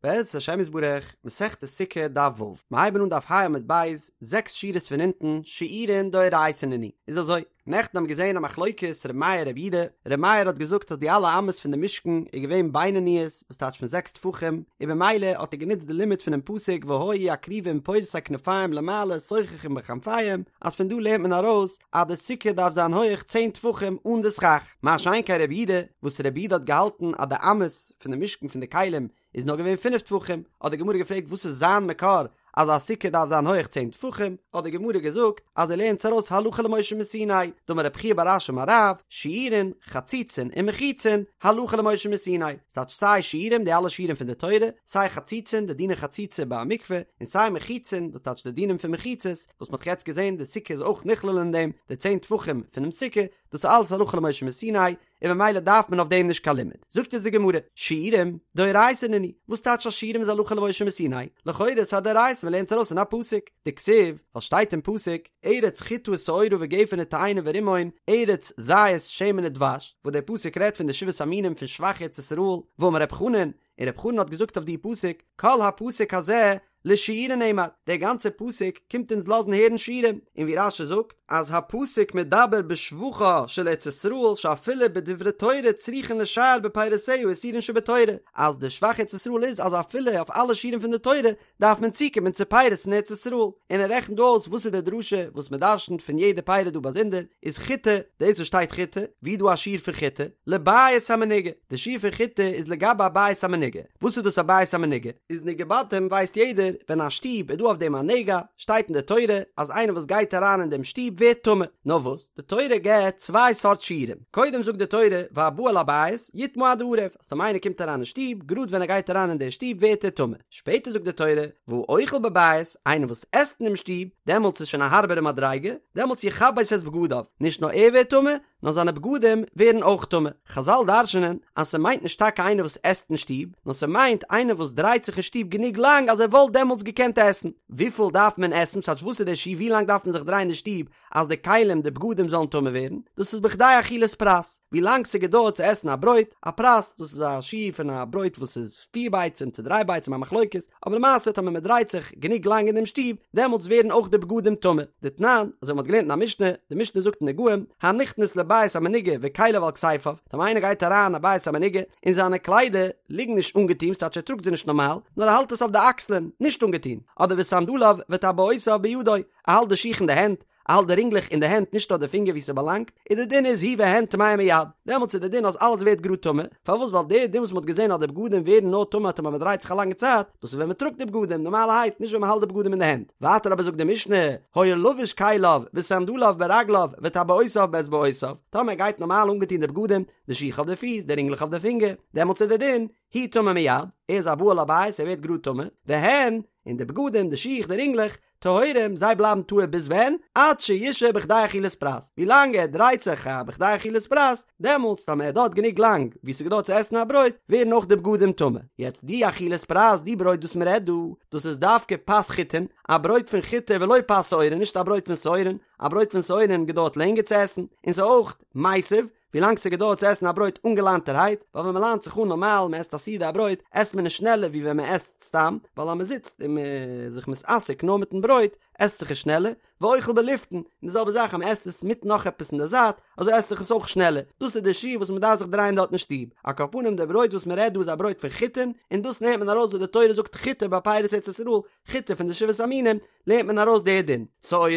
בעזרת השם יתברך, מסכת סוכה דף ו', מיר הייבן אן דף ה' עמוד ב', זעקס שורות פון אונטן, שיעורין דאורייתא נינהו, איז אזוי, נעכטן האבן געזען א מחלוקת ר' מאיר ר' יהודה, ר' מאיר האט געזאגט אז די אלע אמות פון די משכן איז געווען בינוניות, וואס טייטש פון זעקס טפחים, און במילא האט ער גענוצט די לימוד פונעם פסוק והיו הכרובים פורשי כנפים למעלה סוככים בכנפיהם, אז פון דא לערנט מען ארויס אז די סוכה דארף זיין הויעך צען טפחים אן די סכך, מה שאין כן ר' יהודה, וואס ר' יהודה האט געהאלטן אז די אמות פון די משכן פון די כלים איז נאר געווען פינף טפחים, האט די גמרא געפרעגט וואס איז זיין מקור אז א סוכה דארף זיין הויעך צען טפחים, האט די גמרא געזאגט אז ער לערנט עס ארויס הלכה למשה מסיני, דאמר רב חייא בר אשי אמר רב, שיעורין, חציצין ומחיצין, הלכה למשה מסיני, ס'טייטש סיי שיעורים די אלע שיעורים פון די תורה, סיי חציצין די דיני חציצה ביי א מקווה, און סיי מחיצין וואס טייטש די דינים פון מחיצות, וואס מ'האט יעצט געזען די סוכה איז אויך נכלל אין דעם, די צען טפחים פונעם סוכה, דאס איז אלעס הלכה למשה מסיני, און ממילא דארף מען אויף דעם נישט קיין לימוד. זאגט אונז די גמרא, שיעורים, דאורייתא נינהו, וואס טייטש אז שיעורים איז הלכה למשה מסיני? לכאורה איז א דאורייתא מען לערנט עס ארויס אין א פסוק, דכתיב, ווייל שטייט אין פסוק, ארץ חטה ושעורה וגפן ותאנה ורימון, ארץ זית שמן ודבש, וואס דער פסוק רעדט פון די שבעת המינים פון שבח ארץ ישראל, ואמר רב חנן, און רב חנן האט געזאגט אויף די פסוק, כל הפסוק הזה לשיעורין נאמר, דער גאנצער פסוק קומט אונז לאזן הערן שיעורים, און ווי רש"י זאגט, אז הפסוק מדבר בשבחה של ארץ ישראל שאפילו בדברי תורה צריכין לשער בפירותיה איסורין שבתורה, אז די שבח ארץ ישראל איז אז אפילו אויף אלע שיעורים פון די תורה דארף מען צוקומען צו פירות אין ארץ ישראל, און ער רעכנט דא אויס וואס איז די דרשה וואס מען דרשנ'ט פון יעדע פירא דא באזונדער, איז חיטה, דאס וואס שטייט חיטה, ווי איז דא א שיעור פון חיטה? לבית המנוגע, די שיעור פון חיטה איזלגבי א בית המנוגע, וואס איז דאס א בית המנוגע? איז נגעי בתים ווייסט יעדער, ווען א שטוב איז דא אויף דעם א נגע, שטייט אין די תורה אז איינער וואס גייט אריין אין דעם שטוב ווערט טמא, נאר וואס, די תורה געבט צוויי סארט שיעורים, קודם זאגט די תורה והבא אל הבית יטמא עד הערב, אז טאמער איינער קומט אריין אין שטוב, גראד ווען ער גייט אריין אין דער שטוב ווערט ער טמא, שפעטער זאגט די תורה והאוכל בבית, איינער וואס עסט אינעם שטוב, דעמאלטס איז שוין א הארבערע מדריגה, דעמאלטס יכבס את בגדיו, נישט נאר ער ווערט טמא, נאר זיינע בגדים ווערן אויך טמא. חזל דרש'נען אז ס'מיינט נישט טאקע איינער וואס עסט אין שטוב, נאר ס'מיינט איינער וואס דרייט זיך אין שטוב גענוג לאנג אז ער וואלט דעמאלטס געקענט עסן. וויפיל דארף מען עסן? ס'טייטש וואס איז דער שיעור ווי לאנג דארף מען זיך דרייען אין שטוב אז די כלים די בגדים זאלן טמא ווערן? דאס איז בכדי אכילת פרס. ווי לאנג ס'געדויערט צו עסן א ברויט, א פרס, דאס איז א שיעור פון א ברויט וואס איז פיר ביצים צו דריי ביצים א מחלוקת, אבער למעשה טאמער מען דרייט זיך גענוג לאנג אין דעם שטוב, דעמאלטס ווערן אויך די בגדים טמא. דתנן, אזוי ווי מען האט געלערנט אין א משנה, די משנה זאגט אין נגעים, הנכנס לבית המנוגע וכליו על כתפיו, טאמער איינער גייט אריין אין א בית המנוגע, און זיינע קליידער ליגן נישט אנגעטון, ס'טייטש ער טראגט זיי נישט נארמאל, נאר ער האלט עס אויף די אקסלען, נישט אנגעטון, אדער וסנדליו וטבעותיו בידו, ער האלט די שיך אין די הענט, ער האלט די רינגלעך אין די הענט נישט אויף די פינגער ווי ס'באלאנגט, איז די דין איז הוא והן טמאין מיד, דעמאלטס איז די דין אז אלעס ווערט גראד טמא, פארוואס ווייל די דין וואס מ'האט געזען אז די בגדים ווערן נאר טמא טאמער מ'דרייט זיך א לאנגע צייט, דאס איז ווען מ'טראגט די בגדים נארמאלערהייט נישט ווען מ'האלט די בגדים אין די הענט, ווייטער אבער זאגט די משנה, היה לבוש כליו וסנדליו ברגליו וטבעותיו באצבעותיו, טאמער ער גייט נארמאל אנגעטון די בגדים, די שיך אויף די פיס, די רינגלעך אויף די פינגער, דעמאלטס איז די דין, הוא טמא מיד, ער איז א בא אל הבית ער ווערט גראד טמא, והן, און די בגדים, די שיך, די רינגלעך, טהורים, זיי בלייבן טהור ביז ווען? עד שישהה בכדי אכילת פרס, ווי לאנג ער דרייט זיך א בכדי אכילת פרס, דעמאלטס טאמער ער דארט גענוג לאנג ווי ס'געדויערט צו עסן א ברויט, ווערן אויך די בגדים טמא. יעצט די אכילת פרס, די ברויט וואס מ'רעדט דא, דאס איז דווקא פת חיטין, א ברויט פון חיטה ולא פת שעורין, נישט א ברויט פון שעורין, א ברויט פון שעורין געדויערט לענגער צו עסן, און ס'איז אויך מיסב, ווילאנג ס'געדויערט צו עסן א ברויט אנגעליינטערהייט, ווייל ווען מ'ליינט זיך אן נארמאל, מ'עסט א סעודה א ברויט, עסט מען עס שנעלער ווי ווען מ'עסט סתם, ווייל אז מ'זיצט און מ'איז זיך מתעסק נאר מיטן ברויט, עסט זיך עס שנעלער, ואוכל בלפתן, און די זעלבע זאך אז מ'עסט עס מיט נאך עפעס אין די זייט, אזוי עסט זיך עס אויך שנעלער, דאס איז די שיעור וואס מ'דארף זיך דרייען דארט אין שטוב. על כל פנים די ברויט וואס מ'רעדט דא איז א ברויט פון חיטין, און דאס נעמט מען ארויס וואס די תורה זאגט חיטה ביי פירות ארץ ישראל, חיטה פון די שבעת המינים, לערנט מען ארויס די דין. שעורה,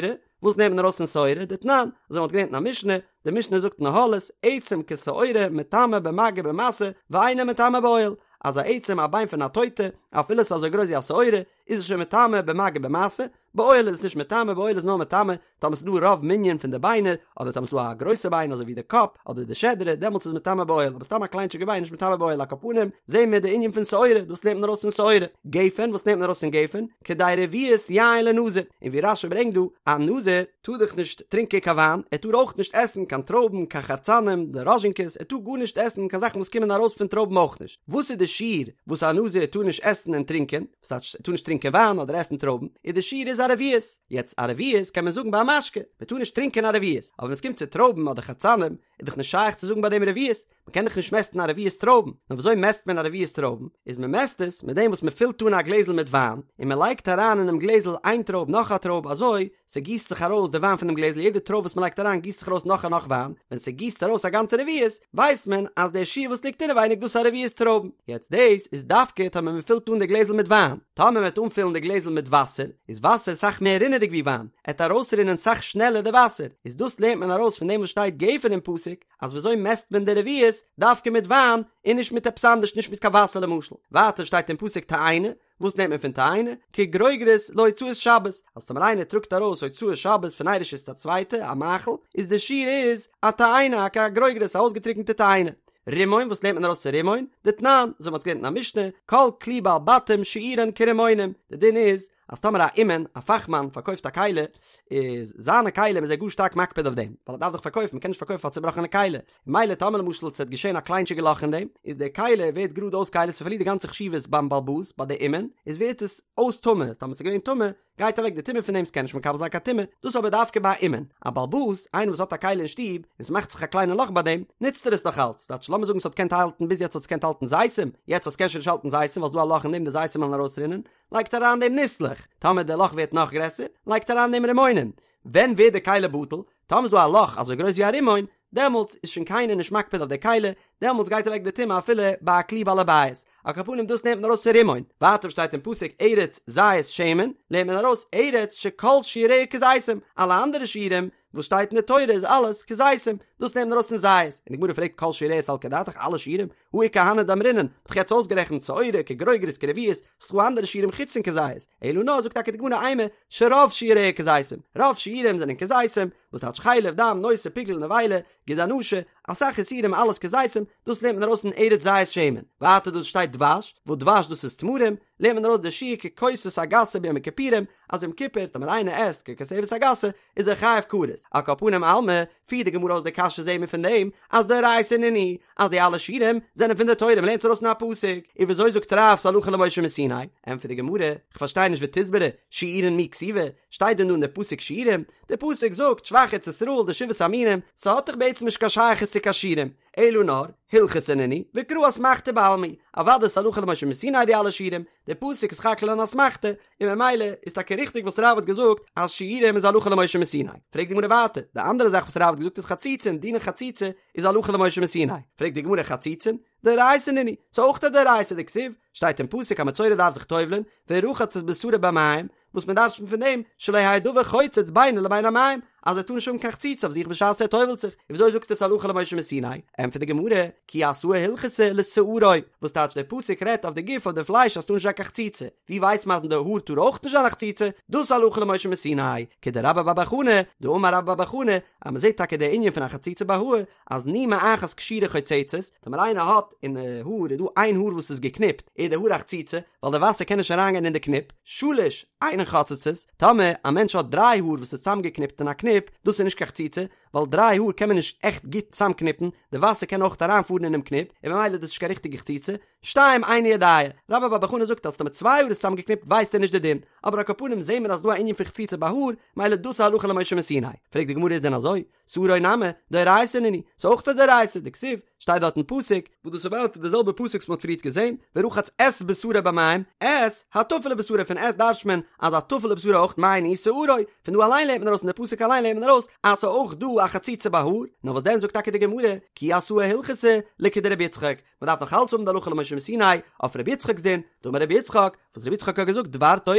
וואס נעמט מען ארויס פון שעורה? דתנן, אזוי מ'האט געלערנט אין א משנה, די משנה זאגט אין אהלות, עצם כשעורה מטמא במגע במשא, ואינו מטמא באוהל, אז א עצם א ביין פון א טויטע, אפילו ס'איז אזוי גרויס ווי א שעורה, איז עס שוין מטמא במגע במשא, באוהל איז עס נישט מטמא, באוהל איז נאר מטמא טאמער ס'איז דא רוב מנין פון די ביינער, אדער טאמער ס'איז דא א גרויסע ביין אזוי ווי די קאפ, אדער די שדרה, דעמאלטס איז מטמא באוהל, אבער סתם א קליינטשיגע ביין איז נישט מטמא באוהל, על כל פנים, זעהן מיר די ענין פון שעורה, דאס לערנט מען ארויס פון שעורה. גפן, וואס נעמט מען ארויס פון גפן? כדי רביעית יין לנזיר, און ווי רש"י ברענגט דא, א נזיר טאר דאך נישט טרינקען קיין וויין, ער טאר אויך נישט עסן קיין טרויבן, קיין חרצנים, די ראזשינקעס, ער טאר גארנישט עסן קיין זאכן וואס קומען ארויס פון טרויבן אויך נישט. וואס איז די שיעור וואס א נזיר טאר נישט עסן און טרינקען? וואס טייטש ער טאר נישט טרינקען וויין אדער עסן טרויבן? איז די שיעור איז א. איז א רביעית, יעצט א רביעית קען מען זאגן ביי א משקה, מען טאר נישט טרינקען א רביעית, אבער ווען עס קומט צו טרויבן אדער חרצנים איז דאך נישט שייך צו זאגן ביי דעם רביעית, מען קען דאך נישט מעסטן א רביעית טרויבן, נאר וויאזוי מעסט מען א רביעית טרויבן? איז מען מעסט עס מיט דעם וואס מען פילט אן א גלעזל מיט וויין, און מען לייגט אריין אינעם גלעזל איין טרויב נאך א טרויב אזוי ס'גיסט זיך ארויס די וויין פונעם גלעזל יעדע טרויב וואס מען לייגט אריין גיסט זיך ארויס נאך און נאך וויין, ווען ס'גיסט ארויס א גאנצע רביעית ווייסט מען אז דער שיעור וואס ליגט אינעווייניג דאס איז א רביעית טרויבן, יעצט דאס איז דווקא טאמער מען פילט אן די גלעזל מיט וויין, טאמער מען וועט אנפילן די גלעזל מיט וואסער, איז וואסער סאך מער רינעדיג ווי וויין, עט ארויסרינען סאך שנעלער די וואסער, איז דאס לערנט מען ארויס פון דעם וואס שטייט גפן אין פסוק, אז וויאזוי מעסט מען די רביעית, דווקא מיט וויין, און נישט מיט עפעס אנדערש נישט מיט קיין וואסער למשל, ווייטער שטייט אין פסוק תאנה, וואס נעמט מען פון תאנה? כגרוגרת להוצאת שבת, אז טאמער איינער טראגט ארויס הוצאת שבת פון איין רשות צו א צווייטע, א מאכל, איז די שיעור איז א תאנה, א גרוגרת, א אויסגעטריקענטע תאנה. רימון, וואס לערנט מען ארויס צו רימון? דתנן, אזוי מ'האט געלערנט אין א משנה, כל כלי בעלי בתים שיעורן כרימונים, די דין איז, אז טאמער א אומן, א פאכמאן, פארקויפט א כלי, איז זיינע כלים איז ער גאר שטארק מקפיד אויף דעם, ווייל ער דארף דאך פארקויפן, מ'קען נישט פארקויפן א צובראכענע כלי, מילא טאמער למשל ס'וועט געשען א קליינטשיגע לאך אין דעם, איז די כלי ווערט גראד אויס כלי, ס'פארלירט די גאנצע חשיבות ביים בעל הבית, ביי די אומן, איז ווערט עס אויס טמא, טאמער ס'איז געווען טמא, גייט אוועק די טומאה פון דעם, ס'קען נישט מקבל זיין קיין טומאה, דאס אבער דווקא ביי א אומן, א בעל הבית, איינער וואס האט א כלי אין שטוב, און ס'מאכט זיך א קליינע לאך ביי דעם, נוצט ער עס נאך אלץ, ס'טייטש לאמיר זאגן ס'האט געקענט האלטן ביז יעצט האט עס געקענט האלטן זיתים, יעצט אז ס'קען שוין נישט האלטן זיתים ווייל ס'דא א לאך אין דעם די זיתים וועלן ארויסרינען, לייגט ער אריין דעם ניסלעך, טאמער די לאך ווערט נאך גרעסער, לייגט ער אריין דעם רימונים, ווען ווערט די כלי בטל? טאמער איז דא א לאך אזוי גרויס ווי א רימון, דעמאלטס איז שוין קיינער נישט מקפיד אויף די כלי, דעמאלטס גייט אוועק די טומאה אפילו ביי א כלי בעל הבית. על כל פנים דאס נעמט מען ארויס פון רימון. ווייטער שטייט אין פסוק ארץ זית שמן, לערנט מען ארויס ארץ שכל שיעוריה כזיתים, אלע אנדערע שיעורים וואס שטייט אין די תורה איז אלעס כזיתים, דאס נעמט מען ארויס פון זית. און די גמרא פרעגט כל שיעוריה סלקא דעתך אלע שיעורים, הא איכא הני דאמרינן, מ'האט דאך יעצט אויסגערעכנט שעורה כגרוגרת כרביעית, ס'דא אנדערע שיעורים חוץ פון כזית, אלא נאר זאגט טאקע די גמרא אימא שרוב שיעוריה כזיתים, רוב שיעורים זענען כזיתים, וואס טייטש חלב, דם, נותר, פיגול, נבילה, גיד הנשה, אסאך איסורים אלעס כזיתים, דאס לערנט מען ארויס אין ארץ זית שמן, ווייטער דאס שטייט דבש, וואס דבש דאס איז תמרים, לערנט מען ארויס די שיעור ככותבת הגסה ביום הכיפורים, אז יום כיפור טאמער איינער עסט ככותבת הגסה איז ער חייב כרת, על כל פנים אלמא, פירט די גמרא אויס די קשיא זעהן מיר פון דעם אז דאורייתא נינהו אז די אלע שיעורים זענען פון די תורה מ'לערנט עס ארויס אין א פסוק, און וויאזוי זאגט רב ס'הלכה למשה מסיני? ענטפערט די גמרא, כ'פארשטיי נישט ותסברא, שיעורין מי כתיבי, שטייט דען דא אין די פסוק שיעורים? די פסוק זאגט שבח ארץ ישראל די שבעת המינים, ס'האט דאך בעצם נישט קיין שייכות צו קיין שיעורים, אלא נאר, הלכתא נינהו, וקרא אסמכתא בעלמא היא, אוודאי ס'הלכה למשה מסיני די אלע שיעורים, די פסוק איז סך הכל אן אסמכתא, און ממילא איז טאקע ריכטיג וואס רב האט געזאגט אז שיעורים איז הלכה למשה מסיני. פרעגט די גמרא ווייטער, די אנדערע זאך וואס רב האט געזאגט איז חציצין, דיני חציצה איז הלכה למשה מסיני. פרעגט די גמרא חציצין, דאורייתא נינהו, ס'איז אויך א דאורייתא דכתיב, שטייט אין פסוק א מצורע דארף זיך טובל'ען, ורחץ את בשרו במים, וואס מען דרש'נט פון דעם, שלא יהא דבר חוצץ בינו לבין המים, אז ער טאר נישט האבן קיין חציצה אויף זיך בשעת ער טובל'ט זיך, און וויאזוי זאגסטו עס הלכה למשה מסיני? ענטפערט די גמרא, כי אתאי הלכתא לשערו, וואס טייטש דער פסוק רעדט אויף די גוף אויף די פלייש אז ס'טאר נישט זיין קיין חציצה, ווי ווייסט מען אז אין די האר טאר אויך נישט זיין א חציצה, דאס הלכה למשה מסיני, כדרבה בר בר חנה, דאמר רבה בר בר חנה, אז מען זעט טאקע די ענין פון א חציצה ביי האר, אז נימא אחת קשורה חוצצת, טאמער איינער האט אין די האר איז דא איין האר וואס איז געקניפט, איז די האר א חציצה, ווייל די וואסער קען נישט אריינגיין אין די קניפ, שלש אינן חוצצות, טאמער א מענטש האט דריי האר וואס איז צוזאמגעקניפט אין א קניפ, דאס איז נישט קיין חציצה, ווייל דריי האר קען מען נישט עכט גוט צוזאמקניפן, די וואסער קען אויך אריינפארן אינעם קניפ, און ממילא איז דאס נישט קיין ריכטיגע חציצה, שתיים אינו יודע, רבה בר בר חנה זאגט אז טאמער צוויי האר איז צוזאמגעקניפט ווייסט ער נישט די דין, אבער על כל פנים זעהן מיר אז ס'דא א ענין פון חציצה ביי האר, ממילא דאס איז הלכה למשה מסיני. פרעגט די גמרא איז דען אזוי? שערו נמי, דאורייתא נינהו, ס'איז אויך א דאורייתא, דכתיב, שטייט דארט אין פסוק, וואס דאס איז ווייטער די זעלבע פסוק וואס מ'האט פריערט געזען, ורחץ את בשרו במים, את, הטפל לבשרו, פון את דרש'ט מען אז א טפל לבשרו אויך מאי ניהו שערו, פון דא אליין לערנט מען ארויס פון די פסוק אליין לערנט מען ארויס אז ס'איז אויך דא א חציצה ביי האר, נאר וואס דען זאגט טאקע די גמרא, כי אתאי הלכתא לכדרבי יצחק, מ'דארף נאך אלץ האבן די הלכה למשה מסיני אויף רבי יצחק'ס דין, דאמר רבי יצחק, וואס רבי יצחק האט געזאגט דבר תורה,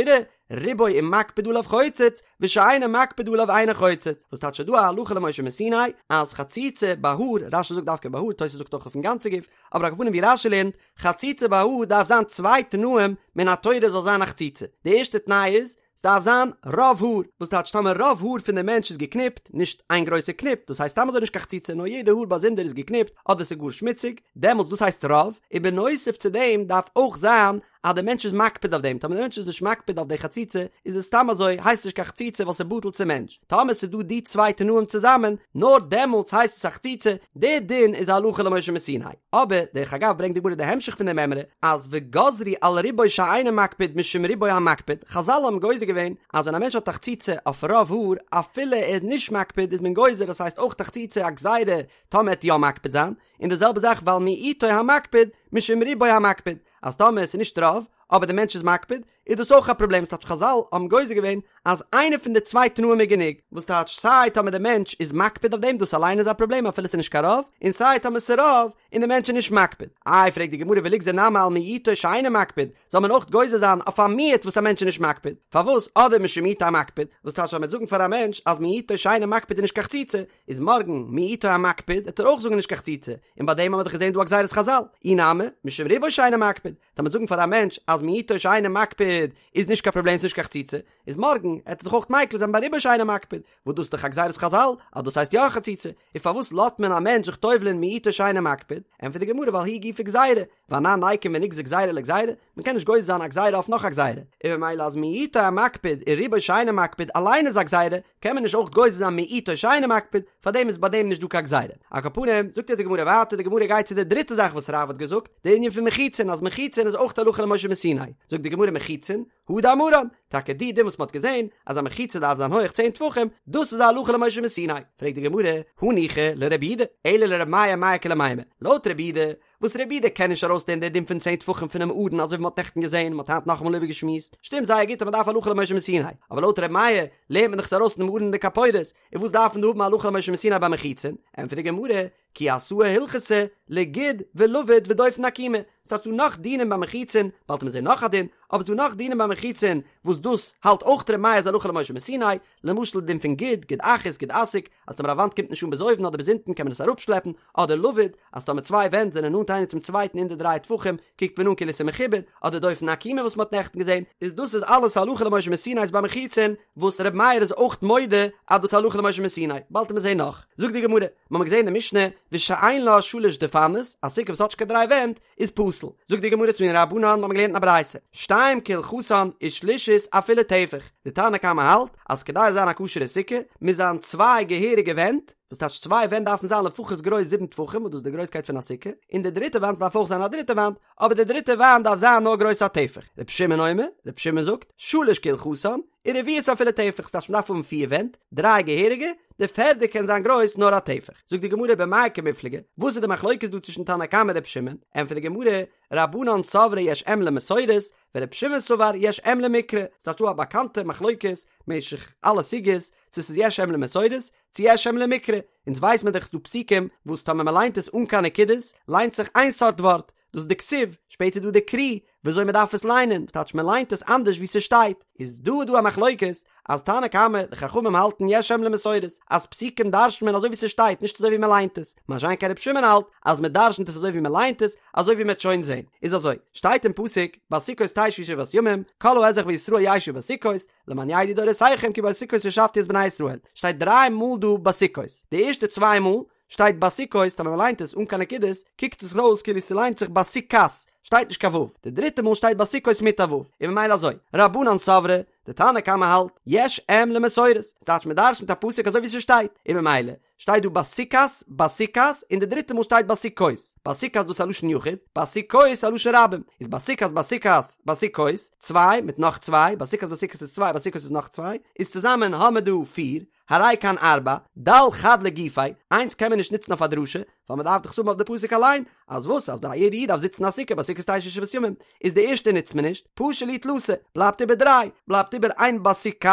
רובו אם מקפיד עליו חוצץ, ושאינו מקפיד עליו אינו חוצץ, וואס טייטש ס'דא א הלכה למשה מסיני אז חציצה ביי האר, רש"י זאגט דווקא ביי האר, תוס' זאגט אויך אויפן גאנצע גוף, אבער על כל פנים ווי רש"י לערנט, חציצה ביי האר דארף זיין צוויי תנאים מן התורה זאל זיין א חציצה, די ערשטע תנאי איז, ס'דארף זיין רוב האר, וואס טייטש טאמער רוב האר פון די מענטש איז געקניפט, נישט איין גרויסע קניפ, דאס הייסט סתם אזוי נישט קיין חציצה נאר יעדע האר באזונדער איז געקניפט, אדער ס'איז גאר שמוציג, דעמאלטס דאס הייסט רוב, און בנוסף צו דעם דארף אויך זיין. אז דער מענטש איז מקפיד אויף דעם, טאמער דער מענטש איז נישט מקפיד אויף די חציצה, איז עס סתם אזוי, הייסט נישט קיין חציצה ווייל ס'איז בטל צום מענטש. טאמער ס'איז דא די צוויי תנאים צוזאמען, נאר דעמאלטס הייסט עס א חציצה, די דין איז הלכה למשה מסיני. אבער, דרך אגב ברענגט די גמרא די המשך פון די מימרא, אז וגזרו על רובו שאינו מקפיד משום רובו המקפיד, חזל האבן גוזר געווען אז ווען א מענטש האט א חציצה אויף רוב האר, אפילו ער איז נישט מקפיד איז מען גוזר אז ס'הייסט אויך א חציצה א גזירה טאמער ער וועט יא מקפיד זיין, און די זעלבע זאך ועל מיעוטו המקפיד משום רובו המקפיד, אז טאמער עס איז נישט רוב, אבער די מענטש איז מקפיד, איז דאס אויך א פראבלעם, ס'טייטש חזל האבן גוזר געווען אז איינע פון די צוויי תנאים איז גענוג, וואס טייטש סיי טאמער די מענטש איז מקפיד אויף דעם דאס אליין איז א פראבלעם אפילו ס'איז נישט קיין רוב, און סיי טאמער ס'איז רוב און די מענטש איז נישט מקפיד. איי פרעגט די גמרא וליגזר נמי על מיעוטו שאינו מקפיד, זאל מען אויך גוזר זיין אויף א מיעוט וואס א מענטש איז נישט מקפיד, פארוואס אדער משום מיעוטו המקפיד, וואס טייטש אז מ'וועט זאגן פאר א מענטש אז מיעוטו שאינו מקפיד איז נישט קיין חציצה, איז מארגן מיעוטו המקפיד וועט ער אויך זאגן נישט קיין חציצה, און ביי דעם האבן מיר דאך געזען דא א גזירת חזל, אי נמי, משום רובו שאינו מקפיד, טאמער מ'וועט זאגן פאר א מענטש אז מיעוטו שאינו מקפיד איז נישט קיין פראבלעם ס'נישט קיין חציצה, איז מארגן עט ער זיך אויך מיקל זיין ביי רובו שאינו מקפיד, וואס דאס איז דאך א גזירת חזל אז דאס הייסט יא א חציצה, און פארוואס לאזט מען א מענטש זיך טובל'ען מיעוטו שאינו מקפיד, ענטפערט די גמרא ווייל היא גופא גזירה, ואנן ניקום ונגזור גזירה לגזירה, מען קען נישט גוזר זיין א גזירה אויף נאך א גזירה, און ממילא אז מיעוטו המקפיד און רובו שאינו מקפיד אליין איז א גזירה, קען מען נישט אויך גוזר זיין מיעוטו שאינו מקפיד, פארדעם איז ביי דעם נישט דא קיין גזירה. על כל פנים, זאגט יעצט די גמרא ווייטער, די גמרא גייט צו די דריטע זאך וואס רב האט געזאגט, די ענין פון מחיצין, אז מחיצין איז אויך הלכה למשה מסיני, זאגט די גמרא מחיצין, הא דאמרן, טאקע די דין וואס מען האט געזען, אז א מחיצה דארף זיין הויעך צען טפחים, דאס איז א הלכה למשה מסיני. פרעגט די גמרא, הניחא לרבי יהודה, אלא לרבי מאיר מאי איכא למימר, לויט רבי יהודה, וואס רבי יהודה קען נישט ארויסלערנען די דין פון צען טפחים פונעם ארון אזוי ווי מ'האט נעכטן געזען און מ'האט היינט נאכאמאל איבערגעשמועסט, שטימט זייער גוט אז מ'דארף הלכה למשה מסיני, אבער לויט רבי מאיר לערנט מען דאך עס ארויס פונעם ארון און די כפורת, און וואס דארף מען דא האבן הלכה למשה מסיני ביי מחיצין? ענטפערט די גמרא, כי אתאי הלכתא לגוד ולבוד ודופן עקומה, ס'טייטש דא נאך דינים ביי מחיצין, באלד וועט מען זען נאך א דין, אבער ס'דא נאך דינים ביי מחיצין וואס דאס האלט אויך רבי מאיר איז הלכה למשה מסיני, למשל די דין פון גוד, גוד אחית, גוד אסיק, אז טאמער א וואנט קומט נישט אן ביז אויבן אדער ביז אונטן קען מען עס אראפשלעפן, אדער לבוד, אז טאמער צוויי ווענט זענען נאנט איינער צום צווייטן אין די דריי טפחים, קוקט מען אן כאילו עס איז מחובר, אדער דופן עקומה וואס מען האט נעכטן געזען, איז דאס איז אלעס הלכה למשה מסיני איז ביי מחיצין, וואס ר' מאיר איז אויך מודה אז דאס הלכה למשה מסיני, באלד וועט מען זען נאך. זאגט די גמרא, מיר האבן געזען אין די משנה, ושאין לה שלש דפנות, א סוכה וואס האט נישט קיין דריי ווענט, איז פסול. זאגט די גמרא תנו רבנן, מיר האבן געלערנט אין א ברייתא, שתיים כהלכתן ושלישית אפילו טפח, די תנא קמא האלט אז כדי עס זיין א כשר'ע סוכה מוז זיין צוויי געהעריגע ווענט, וואס טייטש צוויי ווענט דארפן זיין לפחות גרויס זיבן טפחים וואס דאס איז די גרויסקייט פון א סוכה, און די דריטע וואנט דארף אויך זיין א דריטע וואנט, אבער די דריטע וואנט דארף זיין נאר גרויס א טפח. רבי שמעון אומר, רבי שמעון זאגט, שלש כהלכתן, ורביעית אפילו טפח, ס'טייטש מ'דארף האבן פיר ווענט, דריי געהעריגע, די פערדע קען זיין גרויס נאר א טפח. זאגט די גמרא במאי קמיפלגי, וואס איז די מחלוקת דא צווישן תנא קמא און רבי שמעון? ענטפערט די גמרא, רבנן סברי יש אם למסורת, ורבי שמעון סבר יש אם למקרא, ס'טייטש דא א באקאנטע מחלוקת משך אלע סוגיות, צו ס'איז יש אם למסורת, צו יש אם למקרא, אונז ווייס מען דאך ס'דא פסוקים וואס טאמער מ'ליינט עס אן קיין נקודות, ליינט זיך איין סארט ווארט, דאס איז די כתיב, שפעטער דא די קרי, וויאזוי מען דארף עס ליינען, וואס טייטש מען ליינט עס אנדערש ווי ס'שטייט, איז דא איז דא א מחלוקת, אז תנא קמא, די חכמים האלטן יש אם למסורת, אז פסוקים דרש'נט מען אזוי ווי ס'שטייט, נישט אזוי ווי מען ליינט עס, מה שאין כן רבי שמעון האלט, אז מען דרש'נט עס אזוי ווי מען ליינט עס, אזוי ווי מען וועט שוין זען. איז אזוי, שטייט אין פסוק, בסוכות תשבו שבעת ימים, כל האזרח בישראל ישבו בסוכות, למען ידעו דורותיכם כי בסוכות הושבתי את בני ישראל, שטייט דריי מאל דא בסוכות, די ערשטע צוויי מאל, שטייט בסוכות, טאמער מ'ליינט עס אן קיין נקודות, קוקט עס אויס כאילו ס'ליינט זיך בסוכת, שטייט נישט קיין ו', די דריטע מאל שטייט בסוכות מיט א ו', און ממילא אזוי, רבנן סברי, די תנא קמא האלט, יש אם למסורת, ס'טייטש מ'דרש'נט א פסוק אזוי ווי ס'שטייט, און ממילא, שטייט דא בסוכת, בסוכת, און די דריטע מאל שטייט בסוכות, בסוכת דאס איז א לשון יחיד, בסוכות א לשון רבים, איז בסוכת בסוכת, בסוכות, צוויי מיט נאך צוויי, בסוכת בסוכת איז צוויי, בסוכות איז נאך צוויי, איז צוזאמען האמער דא פיר, הרי כאן ארבע, דל חד לגופיה, איינס קען מען נישט נוצן אויף א דרשה, ווייל מען דארף דאך עס האבן אויף די פסוק אליין, אז וואס אז ביי יעדע איד דארף זיצן א סוכה בסוכות תשבו שבעת ימים, איז די ערשטע נוצט מען נישט, פשו להו תלתא, בלייבט איבער דריי, בלייבט איבער איין בסוכת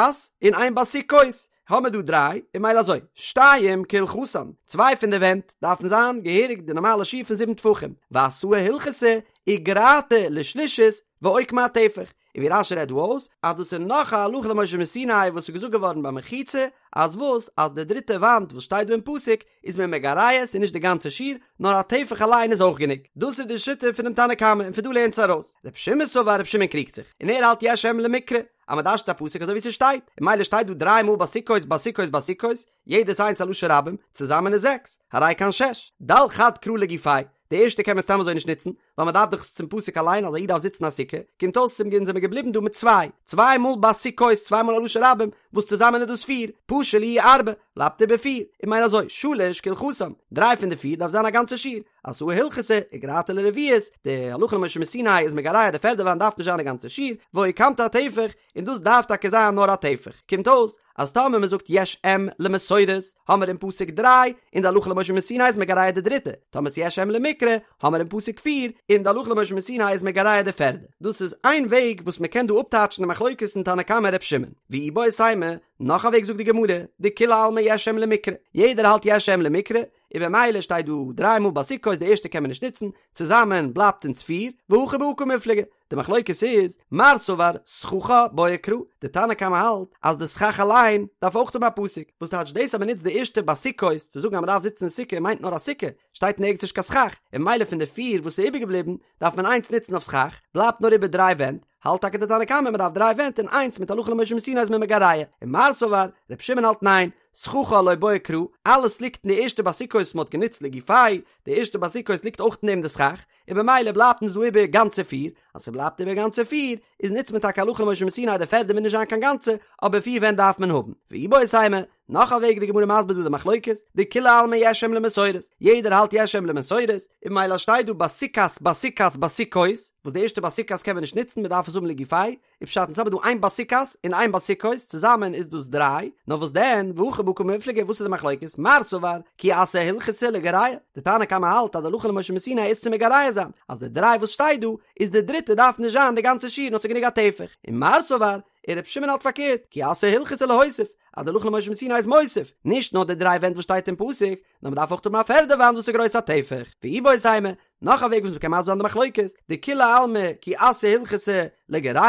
און איין בסוכות, האמער דא דריי, און ממילא אזוי, שתיים כהלכתן, צוויי פון די ווענט דארפן זיין געהעריג די נארמאלע שיעור פון זיבן טפחים, ואתאי הלכתא, איגרתא לשלישית ואוקמה אטפח, און ווי רש"י רעדט דא אויס אז דאס איז נאך א הלכה למשה מסיני וואס איז געזאגט געווארן ביי מחיצה, אז וואס אז די דריטע וואנט וואס שטייט דא אין פסוק איז מען מגרע עס און נישט די גאנצע שיעור נאר א טפח אליין איז אויך גענוג, דאס איז די שיטה פונעם תנא קמא און פון דא לערנט עס ארויס ר' שמעון סבר ר' שמעון קריגט זיך און ער האלט יש אם למקרא אז מען דרש'נט א פסוק אזוי ווי ס'שטייט און ממילא שטייט דא דריי מאל בסוכות בסוכות בסוכות יעדעס איינס א לשון רבים צוזאמען איז זעקס הרי כאן שש דל חד קרא לגופיה. די ערשטע קען מען סתם אזוי נישט נוצן, ווייל מען דארף דאך עס צום פסוק אליין אז א איד דארף זיצן א סוכה, קומט אויס צום גן זעמיר געבליבן דא מיט צוויי, צוויי מאל בסוכות, צוויי מאל א לשון רבים, וואס צוזאמען איז דאס פיר, פשו להו ארבע, בלייבט איבער פיר, און ממילא אזוי, שלש כהלכתן, דריי פון די פיר דארף זיין א גאנצע שיעור, אתאי הלכתא, וגרעתא לרביעית, די הלכה למשה מסיני איז מגרע די פערדע וואנט דארף נישט זיין די גאנצע שיעור, ואוקמת אטפח, און דאס דארף טאקע זיין נאר א טפח. קומט אויס אז טאמער מען זאגט יש אם למסורת האמער אין פסוק דריי, און די הלכה למשה מסיני איז מגרע די דריטע, טאמער ס'יש אם למקרא האמער אין פסוק פיר, און די הלכה למשה מסיני איז מגרע די פערדע. דאס איז איין וועג וואס מען קען דא אפטייטשן די מחלוקת אין תנא קמא ר' שמעון. ואיבעית אימא, נאך א וועג זאגט די גמרא, דכולי עלמא יש אם למקרא, יעדער האלט יש אם למקרא, און במילא שטייט דא דריי מאל בסוכות די ערשטע קען מען נישט נוצן, צוזאמען בלייבט אונז פיר, והכא בהא קמיפלגי, די מחלוקת איז, מר סבר סככה בעיא קרא, די תנא קמא האלט אז די סכך אליין דארף אויך האבן א פסוק, וואס טייטש דאס אז מען נוצט די ערשטע בסוכות צו זאגן אז מען דארף זיצן אין סוכה מיינט נאר א סוכה, שטייט נערגעץ נישט קיין סכך, און ממילא פון די פיר וואס איז איבערגעבליבן דארף מען איינס נוצן אויף סכך, בלייבט נאר איבער דריי ווענט, האלט טאקע די תנא קמא מען דארף דריי ווענט און איינס מיט הלכה למשה מסיני איז מען מגרע, און מר סבר, ר' שמעון האלט ניין, סככה לא בעיא קרא, אלעס ליגט אין די ערשטע בסוכות וואס מען האט גענוצט לגופיה, די ערשטע בסוכות ליגט אויך אין דעם די סכך, און במילא בלייבט אונז דא איבער גאנצע פיר, אז ס'בלייבט איבער גאנצע פיר, איז נוצט מען טאקע הלכה למשה מסיני די פערדע מוז נישט זיין קיין גאנצע, אבער פיר ווענט דארף מען האבן. ואיבעית אימא, נאך א וועג די גמרא מסביר דא די מחלוקת, דכולי עלמא יש אם למסורת, יעדער האלט יש אם למסורת, און במילא שטייט דא בסוכת בסוכת בסוכות, וואס די ערשטע בסוכת קען מען נישט נוצן מען דארף עס האבן לגופיה, איז פשט אונז האבן דא איין בסוכת און איין בסוכות, צוזאמען איז דאס דריי, נאר וואס דען, והכא בהא קמיפלגי, וואס איז די מחלוקת, מר סבר, כי אתא הלכתא לגרע, די תנא קמא האלט אז די הלכה למשה מסיני איז צו מגרע זיין, אז די דריי וואס שטייט דא, איז די דריטע דארף נישט זיין די גאנצע שיעור נאר ס'איז גענוג א טפח, און מר סבר, און ר' שמעון האלט פארקערט, כי אתא הלכתא להוסיף, אז די הלכה למשה מסיני איז מוסיף, נישט נאר די דריי ווענט וואס שטייט אין פסוק, נאר מ'דארף אויך האבן א פערדע וואנט וואס איז גרויס א טפח, ואיבעית אימא, נאך א וועג וואס מ'קען מסביר זיין די מחלוקת, דכולי עלמא כי אתא הלכתא לגרע,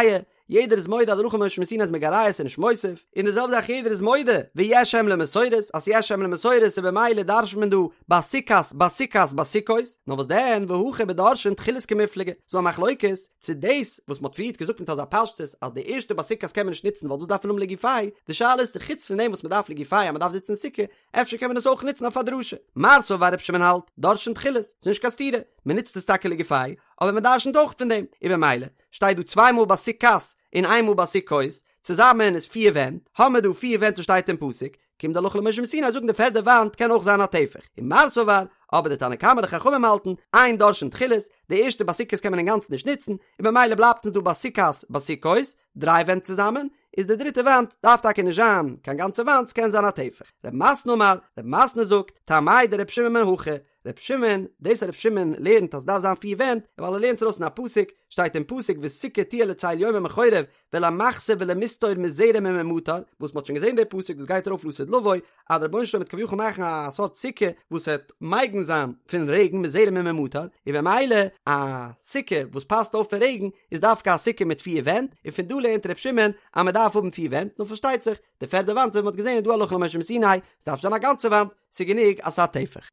יעדער איז מודה אז די הלכה למשה מסיני איז מגרע ס'איז נישט מוסיף, און די זעלבע זאך יעדער איז מודה ויש אם למסורת אז ס'יש אם למסורת און במילא דרש'נט מען דא בסוכת בסוכת בסוכות, נאר וואס דען והכא בדורשין תחילות קמיפלגי, ס'דא א מחלוקת צו דאס וואס מ'האט פריערט געזאגט מיט אזא פשטות אז די ערשטע בסוכת קען מען נישט נוצן ווייל דאס דארף מען האבן לגופיה, די שאלה איז צו חוץ פון דעם וואס מ'דארף לגופיה אז מ'דארף זיצן אין סוכה, אפשר קען מען עס אויך נוצן אויף א דרשה. מר סבר ר' שמעון האלט, דורשין תחילות, ס'איז נישט קיין סתירה, מ'נוצט עס טאקע לגופיה, אבער מ'דרשנ'ט אויך פון דעם, און במילא, שטייט דא צוויי מאל בסוכת און איין מאל בסוכות, צוזאמען איז פיר ווענט, האמער דא פיר ווענט וואס שטייט אין פסוק, קומט די הלכה למשה מסיני זאגן די פערדע וואנט קען אויך זיין א טפח, און מר סבר, אבער די תנא קמא די חכמים האלטן, אין דורשין תחילות, די ערשטע בסוכת קען מען אינגאנצן נישט נוצן, און במילא בלייבט אונז דא בסוכת בסוכות, דריי ווענט צוזאמען, איז די דריטע וואנט דארף טאקע נישט זיין קיין גאנצע וואנט ס'קען זיין א טפח. רב מתנה אמר, רב מתנה זאגט, טעמיה דר' שמעון מהכא, ר' שמעון, דאס אז ר' שמעון לערנט אז ס'דארף זיין פיר ווענט, ווייל ער לערנט עס ארויס אין א פסוק, שטייט אין פסוק וסוכה תהיה לצל יומם מחורב ולמחסה ולמסתור מזרם וממטר, וואס מ'האט שוין געזען די פסוק דאס גייט ארויף לעתיד לבוא, אז דער רבונו של עולם וועט כביכול מאכן א סארט סוכה וואס וועט מגין זיין פון רעגן מזרם וממטר, און במילא א סוכה וואס פאסט אויף פון רעגן איז דווקא א סוכה מיט פיר ווענט, און פון דא לערנט ר' שמעון אז מ'דארף האבן פיר ווענט, נאר פארשטייט זיך די פערדע וואנט ווי מ'האט געזען איז דא הלכה למשה מסיני, ס'דארף נישט זיין א גאנצע וואנט, ס'איז גענוג אז ס'איז א טפח.